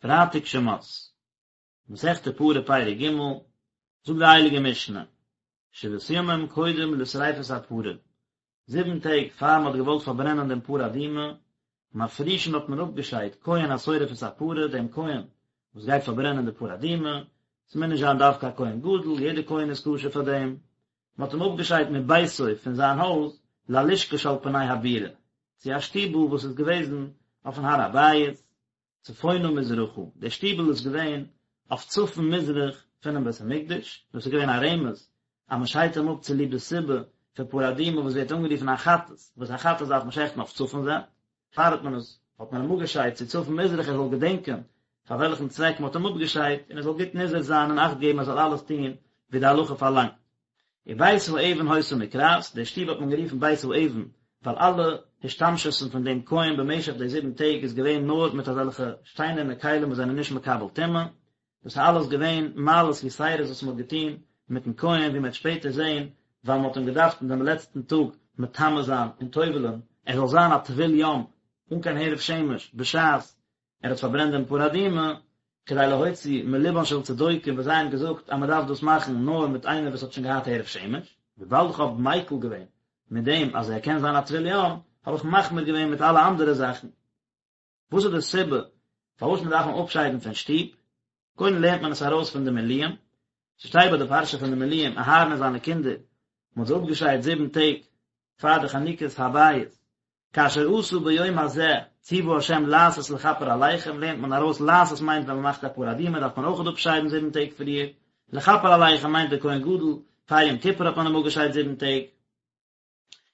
פרייטאג שמות, מסכת פרה פרק ג', זאגט די הייליגע משנה, שבעת ימים קודם לשריפת הפרה, זיבן טעג פאר מען האט געוואלט פארברענען דעם פרה אדומה, מפרישין האט מען אפגעשיידט כהן השורף את הפרה, דעם כהן וואס גייט פארברענען די פרה אדומה, ס'מוז נישט זיין דווקא א כהן גדול, יעדער כהן איז כשר פאר דעם, מען האט אים אפגעשיידט מביתו פון זיין הויז ללשכה שעל פני הבירה, צו א שטיבל וואס איז געוועזן אויפן הר הבית, צפונה מזרחה, דער שטיבל איז געווען אויף צפון מזרח פונעם בית המקדש, דאס איז געווען א רמז אז מען שיידט אים אפ צוליב די סיבה פון פרה אדומה וואס ווערט אנגערופן א חטאת, וואס א חטאת דארף מען שעכטן אויף צפון זייט, פאר האט מען עס האט מען אים אפגעשיידט צו צפון מזרח ער זאל געדענקען פאר וועלכן צוועק מען האט אים אפגעשיידט און ער זאל גוט נזהר זיין און אכט געבן ער זאל אלעס טון ווי די הלכה פארלאנגט. ובית האבן היתה נקראת, די שטוב האט מען גערופן בית האבן, ווייל אלע השתמשות'ן פון דעם כהן במשך די זיבן טעג איז געווען נאר מיט אזעלכע שטיינערנע כלים וואס זענען נישט מקבל טומאה, דאס איז אלעס געווען מעלות יתירות וואס מען האט געטון מיטן כהן ווי מען וועט שפעטער זען, ווייל מען האט אים געדארפט אין דעם לעצטן טאג מטמא זיין און טובל'ען, ער זאל זיין א טבול יום אן קיין הערב שמש בשעת ער האט פארברענט דעם פרה אדומה, כדי להוציא מלבן של צדוקים וואס זיי האבן געזאגט אז מען דארף דאס מאכן נאר מיט איינער וואס האט שוין געהאט הערב שמש, וויבאלד איך האב מיקל געווען מיט דעם אז ער קען זיין א טבול יום, האב איך מחמיר געווען מיט אלע אנדערע זאכן. וואס איז די סיבה פארוואס מען דארף אים אפשיידן פון שטוב? קודם לערנט מען עס ארויס פון די מילואים, ס'שטייט ביי די פרשה פון די מילואים אהרן און זיינע קינדער, מען האט זיי אפגעשיידט זיבן טעג פאר די חנוכת הבית, כאשר עשה ביום הזה צוה ה' לעשות לכפר עליכם, לערנט מען ארויס לעשות מיינט ווען מען מאכט א פרה אדומה דארף מען אויכעט אפשיידן זיבן טעג פריער, לכפר עליכם מיינט דער כהן גדול, פאר יום כיפור האט מען אים אפגעשיידט זיבן טעג.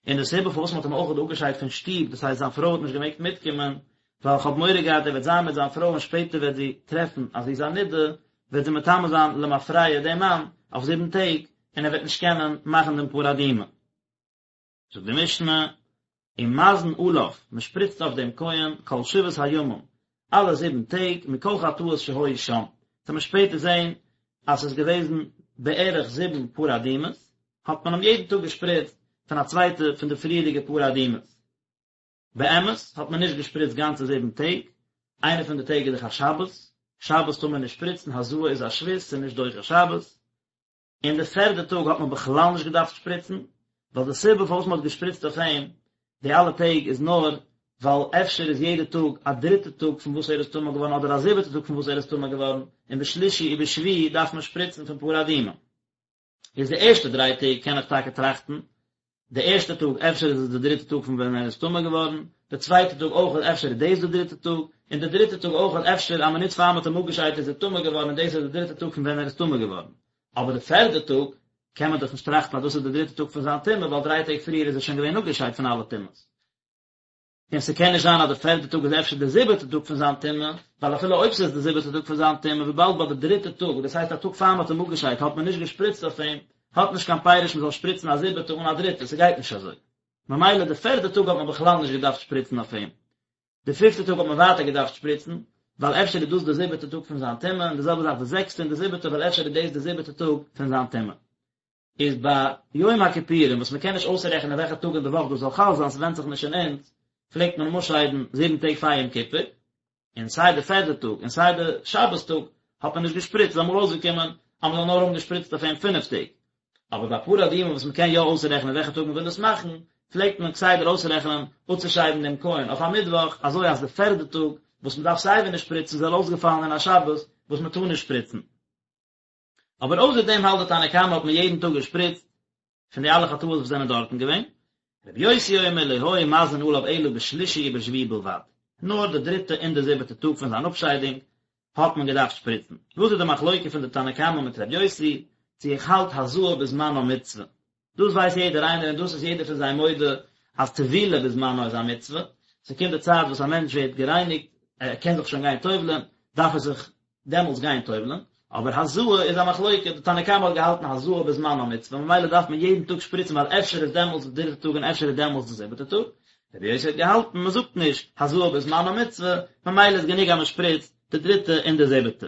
און די סיבה פארוואס מען האט אים אויכעט אפגעשיידט פון שטוב, דאס הייסט זיין פרוי האט נישט געמעגט מיטקומען, ווייל איך האב מורא געהאט ער וועט זיין מיט זיין פרוי און שפעטער וועט זי טרעפן אז זי איז א נידה, וועט זי מטמא זיין למפרע דעם מאן אויף זיבן טעג, און ער וועט נישט קענען מאכן דעם פרה אדומה. זאגט די משנה, ומזין עליו, מען שפריצט אויף דעם כהן כל שבעת הימים, אלע זיבן טעג, מכל חטאות שהיו שם, וועט מען שפעטער זען אז ס'איז געוועזן בערך זיבן פרה אדומות, האט מען אים יעדן טאג געשפריצט פון א צווייטע פון די פריערדיגע פרה אדומות. באמת האט מען נישט געשפריצט גאנצע זיבן טעג, איינע פון די טעג איז דאך א שבת, שבת טאר מען נישט שפריצן, הזאה איז א שבות, ס'איז נישט דוחה שבת, און די פערדע טאג האט מען בכלל נישט געדארפט שפריצן, ווייל די סיבה פארוואס מען האט געשפריצט אויף אים די אלע טעג איז נאר ווייל אפשר איז יעדע טאג א דריטע טאג פון וואס ער איז טמא געווארן אדער א זיבעטע טאג פון וואס ער איז טמא געווארן, און בשלישי ובשביעי דארף מען שפריצן פון פרה אדומה. איז די ערשטע דריי טעג קען איך טאקע טראכטן, די ערשטע טאג אפשר איז עס די דריטע טאג פון ווען ער איז טמא געווארן, די צווייטע טאג אויך אפשר איז דאס די דריטע טאג, און די דריטע טאג אויך אפשר א מינוט פאר מ'האט אים אפגעשיידט איז ער טמא געווארן און דאס איז די דריטע טאג פון ווען ער איז טמא געווארן. אבער די פערדע טאג קען מען דאך נישט טראכטן אז דאס איז די דריטע טאג פון זיין טומאה ווייל דריי טעג פריער איז ער שוין געווען אפגעשיידט פון אלע טומאות. און ס'קען נישט זיין אז די פערדע טאג איז אפשר די זיבעטע טאג פון זיין טומאה, ווייל אפילו אויב ס'איז די זיבעטע טאג פון זיין טומאה, וויבאלד ביי די דריטע טאג, דאס הייסט א טאג פאר מ'האט אים אפגעשיידט, האט מען נישט געשפריצט אויף אים, האט נישט קיין פירוש מ'זאל שפריצן א זיבעטע אן א דריטע, ס'גייט נישט אזוי. ממילא די פערדע טאג האט מען בכלל נישט געדארפט שפריצן אויף אים. די פיפטע טאג האט מען ווייטער געדארפט שפריצן, ווייל אפשר איז דאס די זיבעטע טאג פון זיין טומאה, און די זעלבע זאך די זעקסטע און די זיבעטע, ווייל אפשר איז דאס די זיבעטע טאג פון זיין טומאה. איז ביי יום הכיפורים וואס מ'קען נישט אויסרעכענען וועלכע טאג אין די וואך דאס זאל חל זיין, ס'ווענדט זיך נישט אין אונז, פלעגט מען אים אפשיידן זיבן טעג פאר יום כיפור, און סיי די פערדע טאג און סיי די שבת טאג האט מען נישט געשפריצט, איז אמאל אויסגעקומען אז מ'זאל נאר האבן געשפריצט אויף אים פינף טעג. אבער ביי פרה אדומה וואס מ'קען יא אויסרעכענען וועלכע טאג מ'וויל עס מאכן, פלעגט מען כסדר אויסרעכענען אפצושיידן דעם כהן אויף א מיטוואך, אזוי אז די פערדע טאג וואס מ'דארף סייווי נישט שפריצן זאל אויסגעפאלן אין א שבת וואס מ'טאר נישט שפריצן. אבער אויסער דעם האלט די תנא קמא האט מען יעדן טאג געשפריצט פון די אלע חטאות וואס זענען דארטן געווען, רבי יוסי אומר לא היו מזין עליו אלא בשלישי ובשביעי בלבד, נאר די דריטע און די זיבעטע טאג פון זיין אפשיידונג האט מען געדארפט שפריצן. וואס איז די מחלוקה פון די תנא קמא מיט רבי יוסי, צו איך האלט הזאה בזמנה מצוה, דאס ווייסט יעדער איינער און דאס איז יעדער פון זיי מודה אז טבילה בזמנה איז א מצוה, ס'קומט די צייט וואס א מענטש ווערט גערייניגט, ער קען זיך שוין גיין טובל'ען, דארף ער זיך דעמאלטס גיין טובל'ען, אבער הזאה איז א מחלוקה, די תנא קמא האט געהאלטן הזאה בזמנה מצוה, ממילא דארף מען יעדן טאג שפריצן ווייל אפשר איז דעמאלטס די דריטע טאג און אפשר איז דעמאלטס די זיבעטע טאג, רבי יוסי האט געהאלטן מען זאגט נישט הזאה בזמנה מצוה, ממילא איז גענוג אז מען שפריצט די דריטע און די זיבעטע.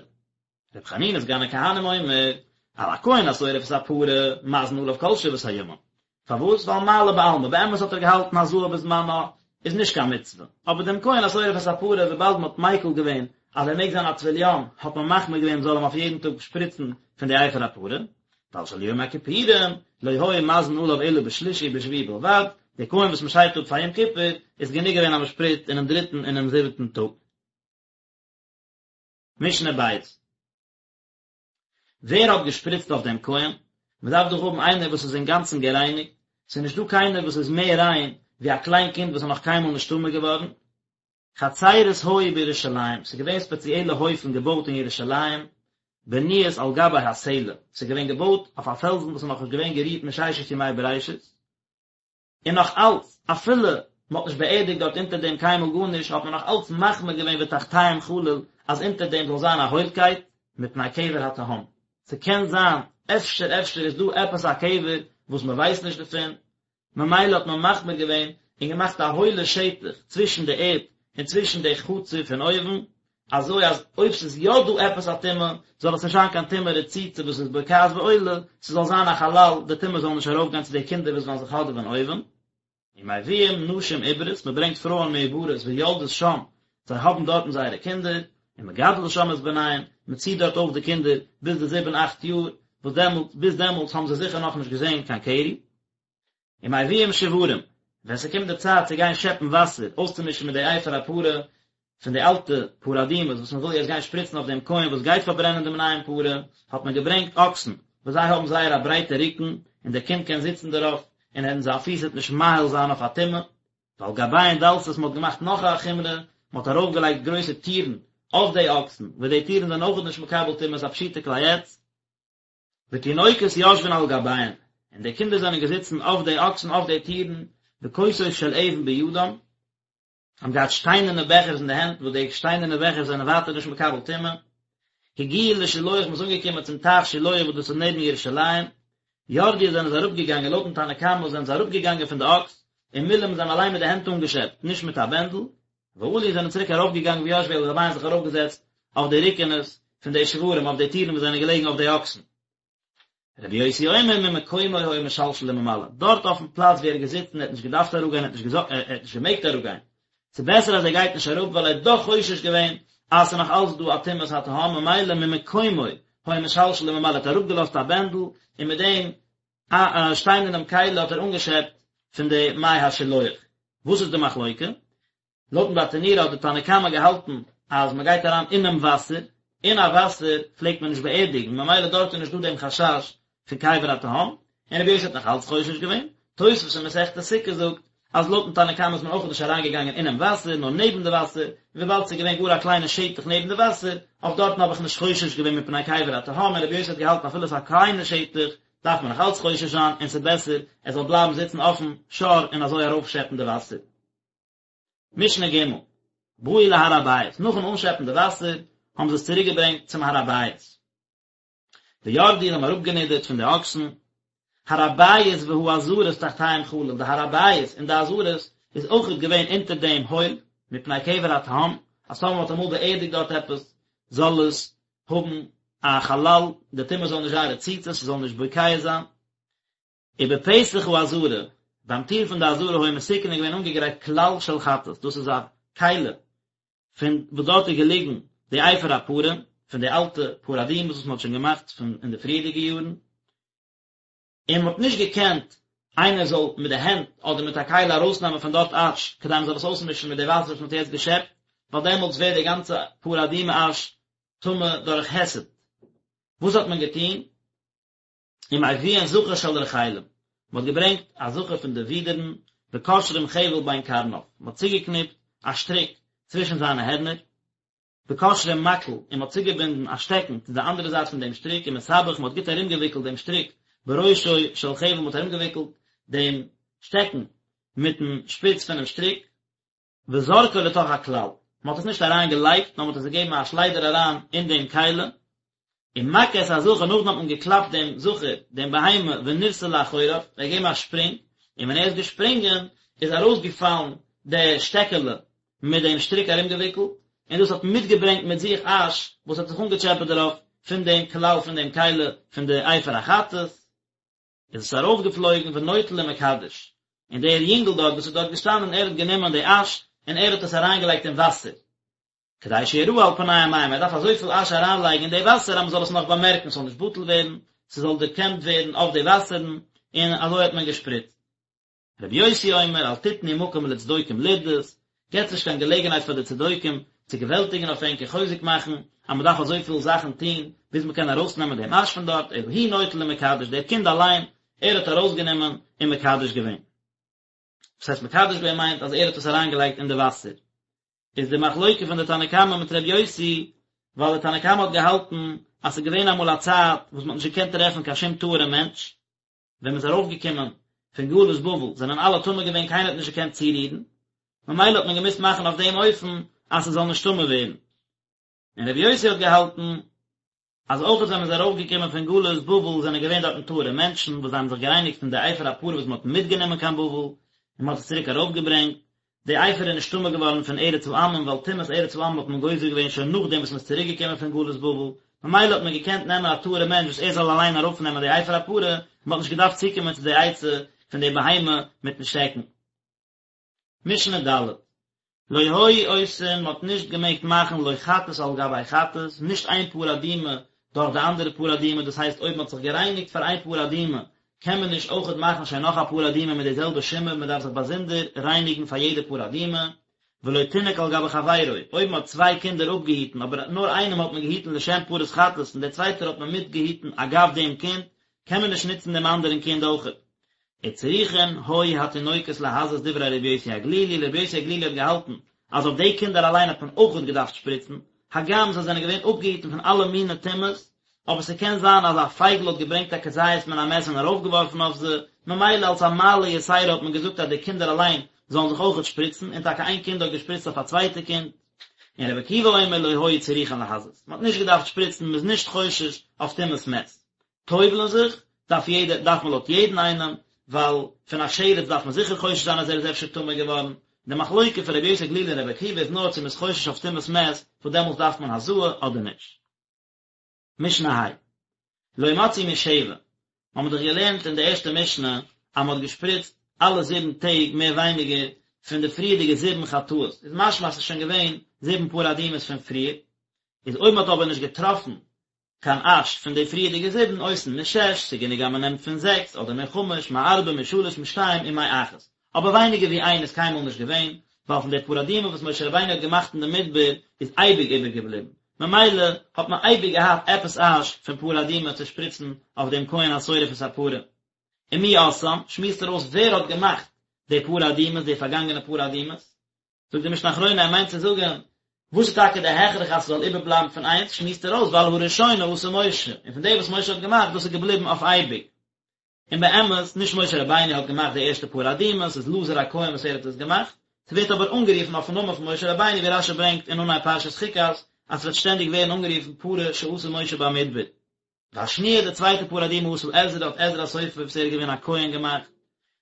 רבי חנינא סגן הכהנים אומר, על הכהן השורף את הפרה, מזין עליו כל שבעת הימים. פארוואס? ווייל מעלה בעלמא, באמת האט ער געהאלטן הזאה בזמנה איז נישט קיין מצוה, אבער דעם כהן השורף את הפרה וויבאלד מען האט מיקל געווען אז ער מעג זיין א טבול יום, האט מען מחמיר געווען מ'זאל אים אויף יעדן טאג שפריצן פון די אפר הפרה, ועל של יום הכיפורים, לא היו מזין עליו אלא בשלישי ובשביעי בלבד, די כהן וואס מ'שיידט אפ פאר יום כיפור, איז גענוג געווען אז מ'שפריצט אינעם דריטן און אינעם זיבעטן טאג. משנה ב'. ווער האט געשפריצט אויף דעם כהן? מען דארף דאך האבן איינער וואס איז אינגאנצן גערייניגט, ס'איז נישט דא קיינער וואס איז מער ריין ווי א קליין קינד וואס איז נאך קיינמאל נישט טמא געווארן. חצרות היו בירושלים, ס'איז געווען ספעציעלע הויפן געבויט אין ירושלים, בנויות על גבי הסלע, ס'איז געווען געבויט אויף א פעלזן וואס איז נאכנישט געווען גערירט מששת ימי בראשית, און נאך אלץ, אפילו מען האט נישט באערדיגט דארט אונטער דעם קיינמאל גארנישט, האט מען נאך אלץ מחמיר געווען ותחתיהם חלל, אז אונטער דעם זאל זיין א הוילקייט, מפני קבר התהום. ס'קען זיין, אפשר אפשר איז דא עפעס א קבר וואס מען ווייסט נישט דערפון, ממילא האט מען מחמיר געווען און געמאכט א הוילע שטח צווישן די ערד און צווישן די חצר פון אויבן, אזוי אז אויב ס'איז יא דא עפעס א טומאה, זאל עס נישט זיין קיין טומאה רצוצה וואס איז בוקעת ועולה, ס'זאל זיין א חלל, די טומאה זאל נישט ארויפגיין צו די קינדער וואס וועלן זיך האדעווען אויבן. ומביאים נשים עוברות, מ'ברענגט פרויען מעוברות ויולדות שם, זיי האבן דארטן זייערע קינדער, ומגדלות שם את בניהן, מ'ציט דארט אויף די קינדער ביז די זיבן אכט יאר, וואס דעמאלטס, ביז דעמאלטס האבן זיי זיכער נאכנישט געזען קיין קרי. ומביאים שוורים, ווען ס'קומט די צייט צו גיין שעפן וואסער אויסצומישן מיט די אפר הפרה פון די אלטע פרה אדומה וואס מ'וויל יעצט גיין שפריצן אויף דעם כהן וואס גייט פארברענען דעם נייעם פרה, האט מען געברענגט אקסן וואס זיי האבן זייער א ברייטע רוקן און דער קינד קען זיצן דערויף און ער זיין פיס וועט נישט מאהיל זיין אויף א טומאה. ועל גביהן דלתות מ'האט געמאכט נאך א חומרא, מ'האט ארויפגעלייגט גרויסע טירן אויף די אקסן, וואס די טירן זענען אויכעט נישט מקבל טומאה, ס'איז א פשוטע כלי עץ. ותינוקות יושבין על גביהן, און די קינדער זענען געזיצן אויף די אקסן אויף די טירן, וכוסות של אבן בידם, האבן געהאט שטיינערנע בעכערס אין די הענט, וואס די שטיינערנע בעכערס זענען ווייטער נישט מקבל טומאה. הגיעו לשילוח, מ'איז אנגעקומען צום טייך שילוח וואס דאס איז נעבן ירושלים, ירדו זענען זיי אראפגעגאנגען, לויטן תנא קמא זענען זיי אראפגעגאנגען פון די אקס, ומילאום זיי האבן אליין מיט די הענט אנגעשעפט, נישט מיט א בענדל, ועלו זענען צוריק ארויפגעגאנגען וישבו על גביהן זיך ארויפגעזעצט אויף די רוקענעס פון די שוורים אויף די טירן וואס זענען געלעגן אויף די אקסן. רבי יוסי אומר ממקומו היה משלשל וממלא, דארט אויפן פלאץ ווי ער איז געזיצן ער האט נישט געדארפט אראפגיין ער האט נישט ער האט נישט געמעגט אראפגיין, ס'איז בעסער אז ער גייט נישט אראפ ווייל ער האט דאך חושש געווען אז ס'איז נאך אלץ דא א טומאת התהום ממילא ממקומו היה משלשל וממלא ער האט אראפגעלאזט א בענדל און מיט דעם א שטיינערנעם כלי האט ער אנגעשעפט פון די מי השילוח. וואס איז די מחלוקה? לויטן ברטנורא האט די תנא קמא געהאלטן אז מען גייט אריין אינעם וואסער, אין א וואסער פלעגט מען נישט באערדיגן ממילא דארט איז נישט דא דעם חשש פון קבר התהום, און רבי יוסי האט נאך אלץ חושש געווען. תוספות אין מסכת סוכה זאגט אז לויטן תנא קמא איז מען אויך נישט אריינגעגאנגען אינעם וואסער נאר נעבן די וואסער, און וויבאלד ס'איז געווען גאר א קליינע שטח נעבן די וואסער, אויף דארטן האב איך נישט חושש געווען מפני קבר התהום, און רבי יוסי האט געהאלטן אפילו ס'איז א קליינע שטח דארף מען נאך אלץ חושש זיין און ס'איז בעסער ער זאל בלייבן זיצן אויפן שור און אזוי ארויפשעפן די וואסער. משנה ג', באו להר הבית, נאכן אנשעפן די וואסער האבן זיי עס צוריק געברענגט צום הר הבית. וירדו זיי האבן אראפגענידערט פון די אקסן, הר הבית והעזרות תחתיהם חלל, די הר הבית און די עזרות איז אויכעט געווען אונטער דעם הויל, מפני קבר התהום, אז טאמער מ'האט אמאל באערדיגט דארט עפעס, זאל עס האבן א חלל, די טומאה זאל נישט זיין רצוצה, ס'זאל נישט בוקע זיין. ובפתח העזרה, ביים טיר פון די עזרה היה מתוקן איז געווען אנגעגרייט כלל של חטאת, דאס איז א כלי פון וואס דארט איז געליגן די אפר הפרה, פון די אלטע פרה אדומה'ס וואס מען האט שוין געמאכט פון אין די פריערדיגע יארן, און מען האט נישט געקענט איינער זאל מיט די הענט אדער מיט א כלי ארויסנעמען פון דארט אש, כדי מען זאל עס אויסמישן מיט די וואסער וואס מען האט יעצט געשעפט, ווייל דעמאלטס ווערט די גאנצע פרה אדומה אש טמא דורך היסט. וואס האט מען געטון? ומביאין זכר של רחלים, מען האט געברענגט א זכר פון די ווידערן, וקושרים חבל בין קרניו, מען האט צוגעקניפט א שטריק צווישן זיינע הערנער, וקושרים מקל, און מען האט צוגעבינדן א שטעקן צו די אנדערע זייט פון דעם שטריק, ומסבך, מען האט גוט ארומגעוויקלט דעם שטריק בראשו של חבל, מען האט ארומגעוויקלט דעם שטעקן מיטן שפיץ פונעם שטריק, וזורקו לתוך הכלל, מען האט עס נישט אריין געלייגט, נאר מען האט עס געגעבן א שליידער אריין אין דעם כלי, ומכה את הזכר, נאכדעם האט מען געקלאפט דעם זכר, דעם בהמה, ונרתע לאחוריו, ער האט געגעבן א שפרינג, און ווען ער איז געשפרינגען, איז ארויסגעפאלן די שטעקעלע מיט דעם שטריק ארומגעוויקלט, און דאס האט מיטגעברענגט מיט זיך אש וואס האט זיך אנגעטשעפעט דערויף פון דעם כלל פון דעם כלי פון די אפר החטאת. איז עס ארויפגעפלויגן ונוטל ומקדש, און דער יונגל דארט וואס איז דארט געשטאנען ער האט גענומען די אש און ער האט עס אריינגעלייגט אין וואסער. כדי שיראה על פני המים, ער דארף אזויפיל אש אריינלייגן אין די וואסער אז מ'זאל עס נאך באמערקן, ס'זאל נישט בטל ווערן, ס'זאל דערקענט ווערן אויף די וואסערן, און אזוי האט מען געשפריצט. רבי יוסי אומר אל תתנו מקום לצדוקים לרדות, געטס נישט קיין געלעגנהייט פאר די צדוקים צו געוועלטיגן אויף ענק און חוזק מאכן אז מען דארף אזויפיל זאכן טון ביז מען קען ארויסנעמען דעם אש פון דארט, אלא הוא נוטל ומקדש, דער קינד אליין, ער האט ארויסגענומען און מקדש געווען. וואס הייסט מקדש געווען מיינט אז ער האט עס אריינגעלייגט אין די וואסער. איז די מחלוקה פון די תנא קמא מיט ר' יוסי, ווייל די תנא קמא האט געהאלטן אז ס'איז געווען אמאל א צייט וואס מ'האט נישט געקענט טרעפן קיין שום טהור'ע מענטש, ווען מ'איז ארויפגעקומען פון גלות בבל זענען אלע טמא געווען קיינער האט נישט געקענט צורירן, ממילא האט מען געמוזט מאכן אויף דעם אופן אז ס'זאל נישט טמא ווערן. און רבי יוסי האט געהאלטן אז אויך ווען מ'איז ארויפגעקומען פון גלות בבל זענען געווען דארטן טהור'ע מענטשן וואס זיי האבן זיך גערייניגט פון די אפר הפרה וואס מ'האט מיטגענומען קיין בבל און מ'האט עס צוריק ארויפגעברענגט, די אפר איז נישט טמא געווארן פון ארץ העמים ווייל טומאת ארץ העמים האט מען גוזר געווען שוין נאכדעם וואס מ'איז צוריק געקומען פון גלות בבל, ממילא האט מען געקענט נעמען א טהור'ע מענטש וואס ער זאל אליין ארויפנעמען די אפר הפרה, מ'האט נישט געדארפט צוקומען צו די עצה פון די בהמה מיטן שטעקן. משנה ד'. לא היו עושין, מ'האט נישט געמעגט מאכן לא חטאת על גבי חטאת, נישט איין פרה אדומה דורך די אנדערע פרה אדומה, דאס הייסט אויב מ'האט זיך גערייניגט פאר איין פרה אדומה, קען מען נישט אויכעט מאכן שוין נאך א פרה אדומה מיט די זעלבע שימור, מ'דארף זיך באזונדער רייניגן פאר יעדע פרה אדומה. ולא תינוק על גבי חברו, אויב מ'האט צוויי קינדער אפגעהיטן אבער נאר איינעם האט מען געהיטן לשם פרת חטאת און דער צווייטער האט מען מיטגעהיטן אגב דעם קינד, קען מען נישט נוצן דעם אנדערן קינד אויכעט. וצריכין היו התינוקות להזות דברי רבי יוסי הגלילי, רבי יוסי הגלילי האט געהאלטן אז אויף די קינדער אליין האט מען אויכעט געדארפט שפריצן, הגם זיי זענען געווען אפגעהיטן פון אלע מיני טומאות, אבער ס'קען זיין אז א פייגל האט געברענגט א כזית מן המת און ארויפגעווארפן אויף זיי, ממילא אלס א מעלה יתירה האט מען געזאגט אז די קינדער אליין זאלן זיך אויכעט שפריצן, און טאקע איין קינד האט געשפריצט אויף א צווייטע קינד. און רבי עקיבא אומר לא היו צריכין להזות, מ'האט נישט געדארפט שפריצן, מ'איז נישט חושש אויף טומאת מת. טובל'ן זיך דארף יעדער, דארף מען לויט יעדן איינעם, ווייל פון א שרץ דארף מען זיכער חושש זיין אז ער איז אפשר טמא געווארן, די מחלוקה פון רבי יוסי הגלילי און רבי עקיבא איז נאר צו מ'איז חושש אויף טומאת מת, וואס דעמאלטס דארף מען הזאה אדער נישט. משנה ה'. לא מצאו משבע, מ'האמיר דאך געלערנט אין די ערשטע משנה אז מ'האט געשפריצט אלע זיבן טעג מער ווייניגער פון די פריערדיגע זיבן חטאות, איז משמע אז ס'איז שוין געווען זיבן פרה אדומות פון פריער, איז אויב מ'האט אבער נישט געטראפן קיין אש פון די פריערדיגע זיבן עושין משש, ס'גענוג אז מ'נעמט פון זעקס, אדער מחמש, מארבע, משלש, משתיים, ומאחת. אבער ווייניגער ווי איין איז קיינמאל נישט געווען, ווייל פון די פרה אדומה וואס משה רבינו האט געמאכט אין די מדבר איז אייביג איבערגעבליבן, ממילא האט מען אייביג געהאט עפעס אש פון פרה אדומה צו שפריצן אויף דעם כהן השורף את הפרה. ומי עשאן, שמועסט ער אויס ווער האט געמאכט די פרה אדומות, די פארגאנגענע פרה אדומות. זאגט די משנה אחרונה ער מיינט צו זאגן וואס איז טאקע די הכרח אז ס'זאל איבערבלייבן פון איינס, שמועסט ער אויס ווייל הראשונה עשה משה, און פון די וואס משה האט געמאכט דאס איז געבליבן אויף אייביג. און באמת, נישט משה רבינו האט געמאכט די ערשטע פרה אדומה, ס'איז אלעזר הכהן וואס ער האט עס געמאכט, ס'ווערט אבער אנגערופן אויפן נאמען פון משה רבינו ווי רשי ברענגט אין אנהייב פרשת חוקת אז ס'וועט שטענדיג ווערן אנגערופן פרה שעשה משה במדבר. והשניה די צווייטע פרה אדומה עשה עזרא האט עזרא הסופר וואס ער איז געווען א כהן געמאכט,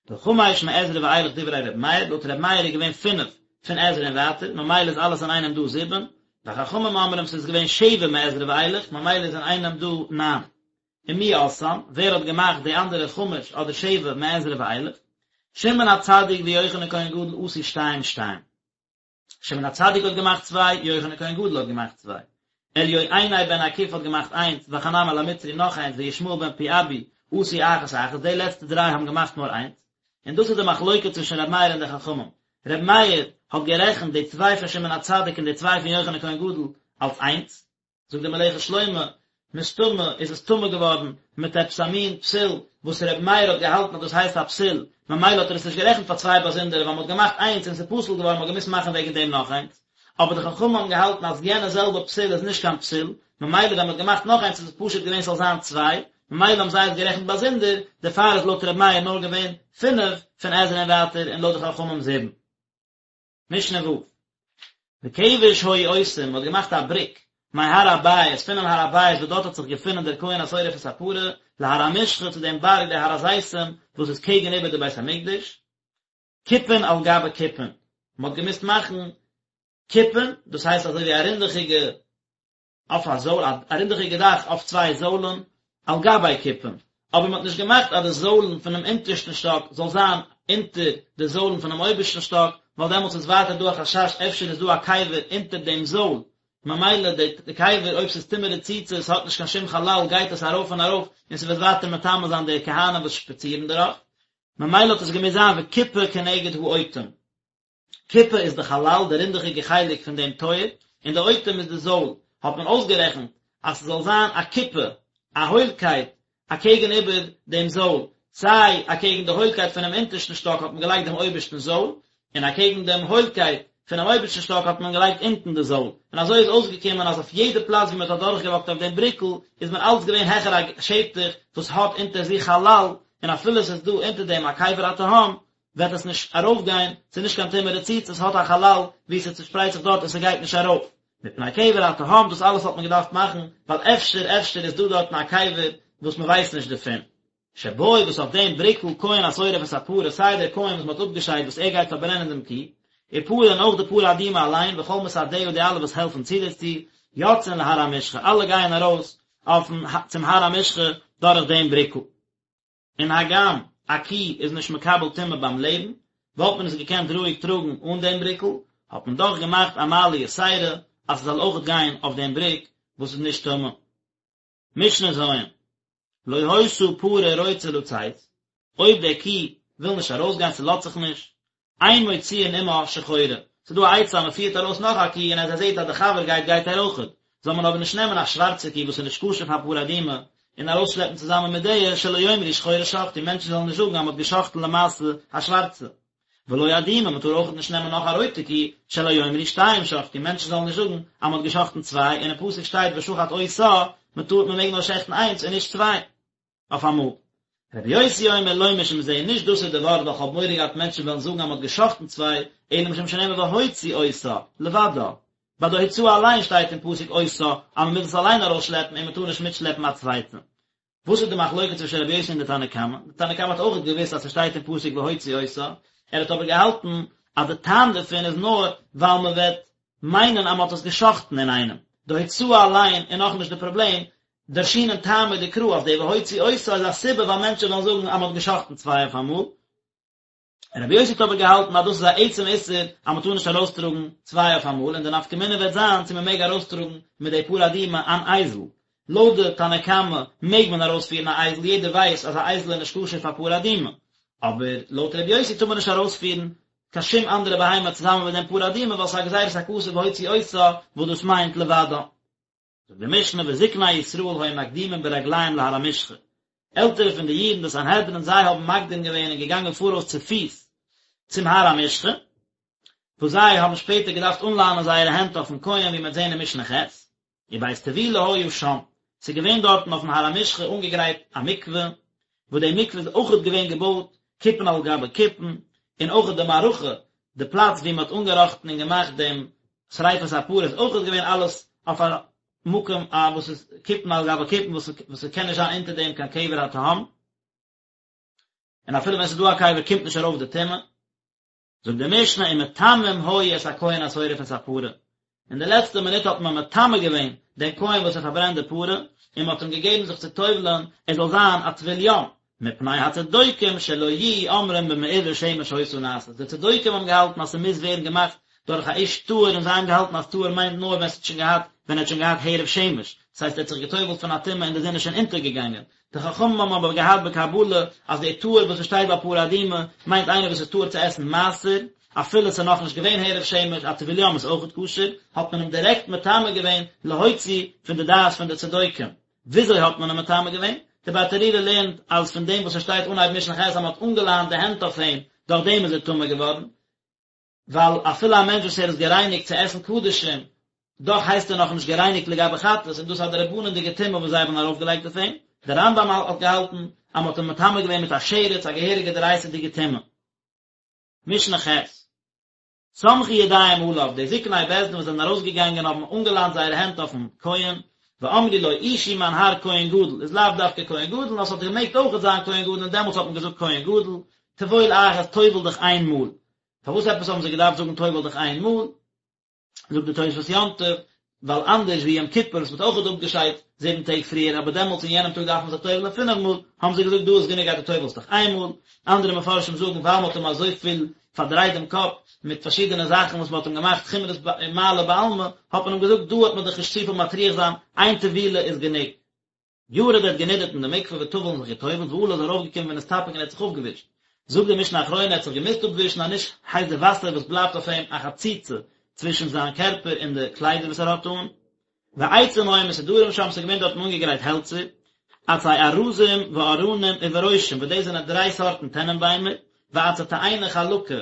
וחמש מעזרא ואילך דברי ר' מאיר, לויט ר' מאיר איז געווען פינף פון עזרא און ווייטער, ממילא איז אלעס אינאיינעם דא זיבן, וחכמים אומרים ס'איז געווען שבע מעזרא ואילך, ממילא איז אינאיינעם דא ניין. ומי עשאן, ווער האט געמאכט די אנדערע חמש אדער שבע מעזרא ואילך? שמעון הצדיק ויוחנן כהן גדול עשו שתיים שתיים. שמעון הצדיק האט געמאכט צוויי, יוחנן כהן גדול האט געמאכט צוויי. אליועיני בן אכוף האט געמאכט איינס, וחנמאל המצרי נאך איינס, וישמעאל בן פיאבי עשו אחת אחת, די לעצטע דריי האבן געמאכט נאר איינס. און דאס איז די מחלוקה צווישן ר' מאיר און די חכמים. ר' מאיר האט גערעכנט די צוויי פון שמעון הצדיק און די צוויי פון יוחנן כהן גדול אלס איינס. זאגט דער מלאכת שלמה, מסתמא איז עס טמא געווארן מיט עפעס א מין פסול וואס ר' מאיר האט געהאלטן אז דאס הייסט א פסול, ממילא האט ער עס נישט גערעכנט פאר צוויי באזונדערע ווייל מען האט געמאכט איינס און עס איז פסול געווארן מען האט געמוזט מאכן וועגן דעם נאך איינס, אבער די חכמים האבן געהאלטן אז יענע זעלבע פסול איז נישט קיין פסול, ממילא ווען מען האט געמאכט נאך איינס איז עס פשוט געווען ס'זאל זיין צוויי, ממילא האבן זיי עס גערעכנט באזונדער, דערפאר איז לויט ר' מאיר נאר געווען פינף פון עזרא און ווייטער און לויט די חכמים זיבן. משנה ו'. וכבש היו עושים, מ'האט געמאכט א בריק, מהר הבית, פונעם הר הבית וואס דארט האט זיך געפונען דער כהן השורף את הפרה, להר המשחה צו דעם בארג דער הר הזיתים וואס איז קעגן איבער די בית המקדש, כיפין על גבי כיפין, מ'האט געמוזט מאכן כיפין, דאס הייסט אזוי ווי א רינדעכיגע אויף א זויל, א רינדעכיגע דאך אויף צוויי זוילן, על גבי כיפין, אבער מען האט נישט געמאכט אז די זוילן פונעם אונטערשטן שטאק זאל זיין אונטער די זוילן פונעם אויבערשטן שטאק, ווייל דעמאלטס איז ווייטער דא א חשש אפשר איז דא א קבר אונטער דעם זויל. ממילא די קבר אויב ס'איז טומאה רצוצה ס'האט נישט קיין שום חלל גייט עס ארויף און ארויף און ס'וועט ווייטער מטמא זיין די כהנים וואס שפאצירן דערויף, ממילא האט עס געמוזט זיין וכיפה כנגד האוטם. כיפה איז די חלל, די רינדעכיגע חלק פון דעם טויער, און די אוטם איז די זויל, האט מען אויסגערעכנט אז ס'זאל זיין א כיפה, א הוילקייט, אקעגן איבער דעם זויל, סיי אקעגן די הוילקייט פונעם אונטערשטן שטאק האט מען געלייגט דעם אויבערשטן זויל, און אקעגן דעם הוילקייט פונעם אויבערשטן שטאק האט מען געלייגט אונטן די זויל, און אזוי איז אויסגעקומען אז אויף יעדע פלאץ ווי מען האט אדורכגעוואקט אויף דעם בריקל איז מען אלץ געווען העכער א שטח וואס האט אונטער זיך חלל, און אפילו עס איז דא אונטער דעם א קבר התהום, וועט עס נישט ארויפגיין, ס'איז נישט קיין טומאה רצוצה, עס האט א חלל ווי ס'צושפרייט זיך דארט און ס'גייט נישט ארויף. מפני קבר התהום, דאס אלעס האט מען געדארפט מאכן, ווייל אפשר אפשר איז דא דארטן א קבר וואס מען ווייסט נישט דערפון. שבו וואס אויף דעם בריקל כהן השורף את הפרה, סיי דער כהן וואס מען האט אפגעשיידט וואס ער גייט פארברענען דעם קי, ופרה און אויך די פרה אדומה אליין, וכל מסעדיה די אלע וואס העלפן צו דערצו, יוצאין להר המשחה, אלע גייען ארויס אויפן צום הר המשחה דורך דעם בריקל. און הגם א קי איז נישט מקבל טומאה ביים לעבן, וואלט מען עס געקענט רואיג טראגן אן דעם בריקל, האט מען דאך געמאכט א מעלה יתירה אז ס'זאל אויכעט גיין אויף דעם בריק וואס איז נישט טמא. משנה ז', לא היתה פרה רוצה לצאת, אויב דער קי וויל נישט ארויסגיין ס'לאזט זיך נישט, אין מוציאין עמה שחורה, ס'איז דא א עצה אז מ'פירט ארויס נאך א קי און אז ער זעט אז די חבר גייט גייט ער אויכעט, זאל מען אבער נישט נעמען א שווארצע קי וואס איז נישט כשר פאר פרה אדומה און ארויסשלעפן צוזאמען מיט די, שלא יאמרו שחורה שחטו, מענטשן זאלן נישט זאגן אז מ'האט געשחט'ן למעשה א שווארצע. ולא אדומה, מ'טאר אויכעט נישט נעמען נאך א רויטע קי, שלא יאמרו שתיים שחטו, מענטשן זאלן נישט זאגן אז מ'האט געשחט'ן צוויי, און אין פסוק שטייט ושחט אותה, מ'טאר מ'מעג נאר שעכטן איינס און נישט צוויי. אויף אמאל. רבי יוסי אומר לא משום זה, נישט דאס איז די ווארט ווייל כ'האב מורא געהאט מענטשן וועלן זאגן אז מ'האט גע'שחט'ן צוויי, אלא משום שנאמר והוציא אותה, לבדה. ביי די הוצאה אליין שטייט אין פסוק אותה אז מ'מוז עס אליין ארויסשלעפן און מ'טאר נישט מיטשלעפן א צווייטע. וואס איז די מחלוקת צווישן רבי יוסי און די תנא קמא? די תנא קמא האט אויך געוואוסט אז ס'שטייט אין פסוק והוציא אותה, ער האט אבער געהאלטן אז די טעם דערפון איז נאר ווייל מ'וועט מיינען אז מ'האט עס גע'שחט'ן אינאיינעם. די הוצאה אליין איז נאכנישט די פראבלעם, דרשינן טעמא דקרא אז די והוציא אותה איז א סיבה ווייל מענטשן וועלן זאגן אז מ'האט גע'שחט'ן צוויי אויף אמאל. רבי יוסי האט אבער געהאלטן אז דאס איז א עצם איסור אז מ'טאר נישט ארויסטראגן צוויי אויף אמאל און די נפקא מינה וועט זיין צו מ'מעג ארויסטראגן מיט די פרה אדומה אן אייזל. לויט די תנא קמא מעג מען ארויספירן א אייזל יעדער ווייסט אז א אייזל איז נישט כשר פאר פרה אדומה. אבער לויט רבי יוסי טאר מען נישט ארויספירן קיין שום אנדערע בהמה צוזאמען מיט דעם פרה אדומה ווייל ס'איז א גזירת הכתוב והוציא אותה וואס דאס מיינט לבדה. זאגט די משנה וזקני ישראל היו מקדימים ברגליהם להר המשחה, עלטערע פון די אידן די סנהדרין זיי האבן מקדים געווען און געגאנגען פאראויס צופיס צום הר המשחה, וואס זיי האבן שפעטער געדארפט אנלאנען זייערע הענט אויפן כהן ווי מ'וועט זען אין משנה ח', ובית טבילה היה שם, ס'איז געווען דארטן אויפן הר המשחה אנגעגרייט א מקווה, וואס די מקווה איז אויכעט געווען געבויט כיפין על גבי כיפין, און אויכעט די מערכה, די פלאץ ווי מ'האט אנגעראכטן און געמאכט דעם שריפת הפרה איז אויכעט געווען אלעס אויף א מקום א וואס איז כיפין על גבי כיפין וואס וואס ס'קען נישט זיין אונטער דעם קיין קבר התהום, און אפילו ווען ס'איז דא א קבר קומט נישט ארויף די טומאה. זאגט די משנה ומטמאים היו את הכהן השורף את הפרה, אין די לעצטע מינוט האט מען מטמא געווען דעם כהן וואס ער פארברענט די פרה, און מען האט אים געגעבן זיך צו טובל'ען ער זאל זיין א טבול יום, מפני הצדוקים שלא יהיו אומרים במעורבי שמש היתה נעשית, די צדוקים האבן געהאלטן אז ס'מוז ווערן געמאכט דורך א איש טהור און זיי האבן געהאלטן אז טהור מיינט נאר ווען ס'האט שוין געהאט ווען ער האט שוין געהאט הערב שמש, דאס הייסט ער האט זיך געטובל'ט פון א טומאה און די זון איז שוין אונטערגעגאנגען, די חכמים האבן אבער געהאט בקבלה אז דער טהור וואס עס שטייט ביי פרה אדומה מיינט איינער וואס איז טהור צו עסן מעשר, אפילו עס איז נאכנישט געווען הערב שמש, א טבול יום איז אויכעט כשר, האט מען אים דירעקט מטמא געווען להוציא פון די דעת פון די צדוקים. וויאזוי האט מען אים מטמא געווען? די ברטנורא לערנט אז פון דעם וואס עס שטייט אנהייב משנה ח' אז מען האט אנגעלאנט די הענט אויף אים, דורך דעם איז ער טמא געווארן, ווייל אפילו א מענטש וואס ער איז גערייניגט צו עסן קדשים, דאך הייסט ער נאכנישט גערייניגט לגבי חטאת, און דאס איז א דרבנן'דיגע טומאה וואס זיי האבן ארויפגעלייגט אויף אים. דער רמב"ם האט געהאלטן אז מען האט אים מטמא געווען מיט א שרץ, א געהעריגע דאורייתא'דיגע טומאה. משנה ח'. סמכו ידיהם עליו, די זקני בית דין וואס זענען ארויסגעגאנגען האבן אנגעלאנט זייערע הענט אויפן כהן, ואמרו לו אישי מיין האר כהן גדול, איז לאו דווקא כהן גדול, נאר ס'האט געמעגט אויכעט זיין כהן גדול און דעמאלטס האט מען געזאגט כהן גדול, טבול אחת טובל דיך איין מאל. פארוואס עפעס האבן זיי געדארפט זאגן טובל דיך איין מאל? זאגט די תוספות יום טוב, ווייל אנדערש ווי יום כיפור וואס מ'האט אויכעט אפגעשיידט זיבן טעג פריער אבער דעמאלטס אין יענעם טאג דארף מען זיך טובל'ען פינף מאל, האבן זיי געזאגט דא איז גענוג אז דו טובל'סט דיך איין מאל, אנדערע מפרשים זאגן ווייל מ'האט אים אזויפיל. פארדרייט דעם קאפ מיט פארשידענע זאכן וואס מען האט אים געמאכט חומרות מעלה בעלמא, האט מען אים געזאגט דא וועט מען דיך נישט צופיל מטריח זיין, איין טבילה איז גענוג. ירד ער האט גענידערט אין די מקווה וטבל און זיך געטובלט ועלה איז ארויפגעקומען ונסתפג און ער האט זיך אפגעווישט. זאגט די משנה אחרונה ער האט זיך געמוזט אפווישן אז נישט הייסט די וואסער וואס בלייבט אויף אים א חציצה צווישן זיין קערפער און די קליידער וואס ער האט אן. ועצים היו מסודרים שם ס'איז געווען דארטן אנגעגרייט העלצער, עצי ארזים וארנים וברושים וואס דאס זענען דריי סארטן טענענביימער, ועצי תאנה חלקה,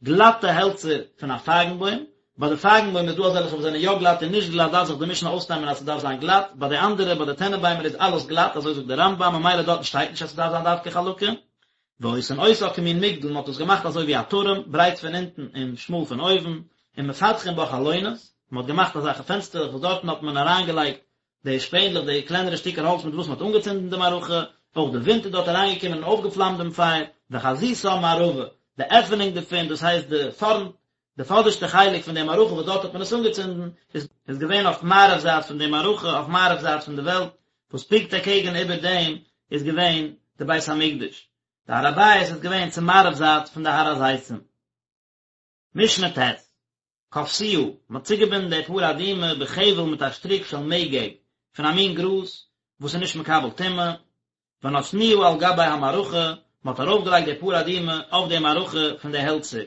גלאטע העלצער פון א פייגנבוים, ביי די פייגנבוים איז דא אזעלכע וואס זענען יא גלאט און נישט גלאט דארף זיך די משנה אויסנעמען אז ס'דארף זיין גלאט, ביי די אנדערע ביי די טענענביימער איז אלעס גלאט אזוי זאגט די רמב"ם ממילא דארטן שטייט נישט אז ס'דארף זיין דווקא חלקה. ועושין אותה כמין מגדל מ'האט עס געמאכט אזוי ווי א טורעם, ברייט פון אונטן און שמאל פון אויבן, ומפתחין בה חלונות, מ'האט געמאכט אזעלכע פענסטערלעך וואס דארטן האט מען אריינגעלייגט די שפענדלעך, די קלענערע שטיקער האלץ מיט וואס מ'האט אנגעצינדן די מערכה, אויך די ווינט איז דארט אריינגעקומען און אויפגעפלאמט דעם פייער, וחזיתה מערבה, די עפענונג דערפון, דאס הייסט די פארנט, די פאדערשטע חלק פון די מערכה וואס דארט האט מען עס אנגעצינדן, איז איז געווען אויף מערב זייט פון די מערכה, אויף מערב זייט פון די וועלט, וואס פונקט אקעגן איבער דעם איז געווען די בית המקדש. די הר הבית איז געווען צו מערב זייט פון די הר הזיתים. משנה ט', כפתוה, מען האט צוגעבינדן די פרה אדומה בחבל מיט א שטריק של מגג, פון א מין גראז וואס איז נישט מקבל טומאה, ונתנוה על גבי המערכה, מען האט ארויפגעלייגט די פרה אדומה אויף די מערכה פון די העלצער.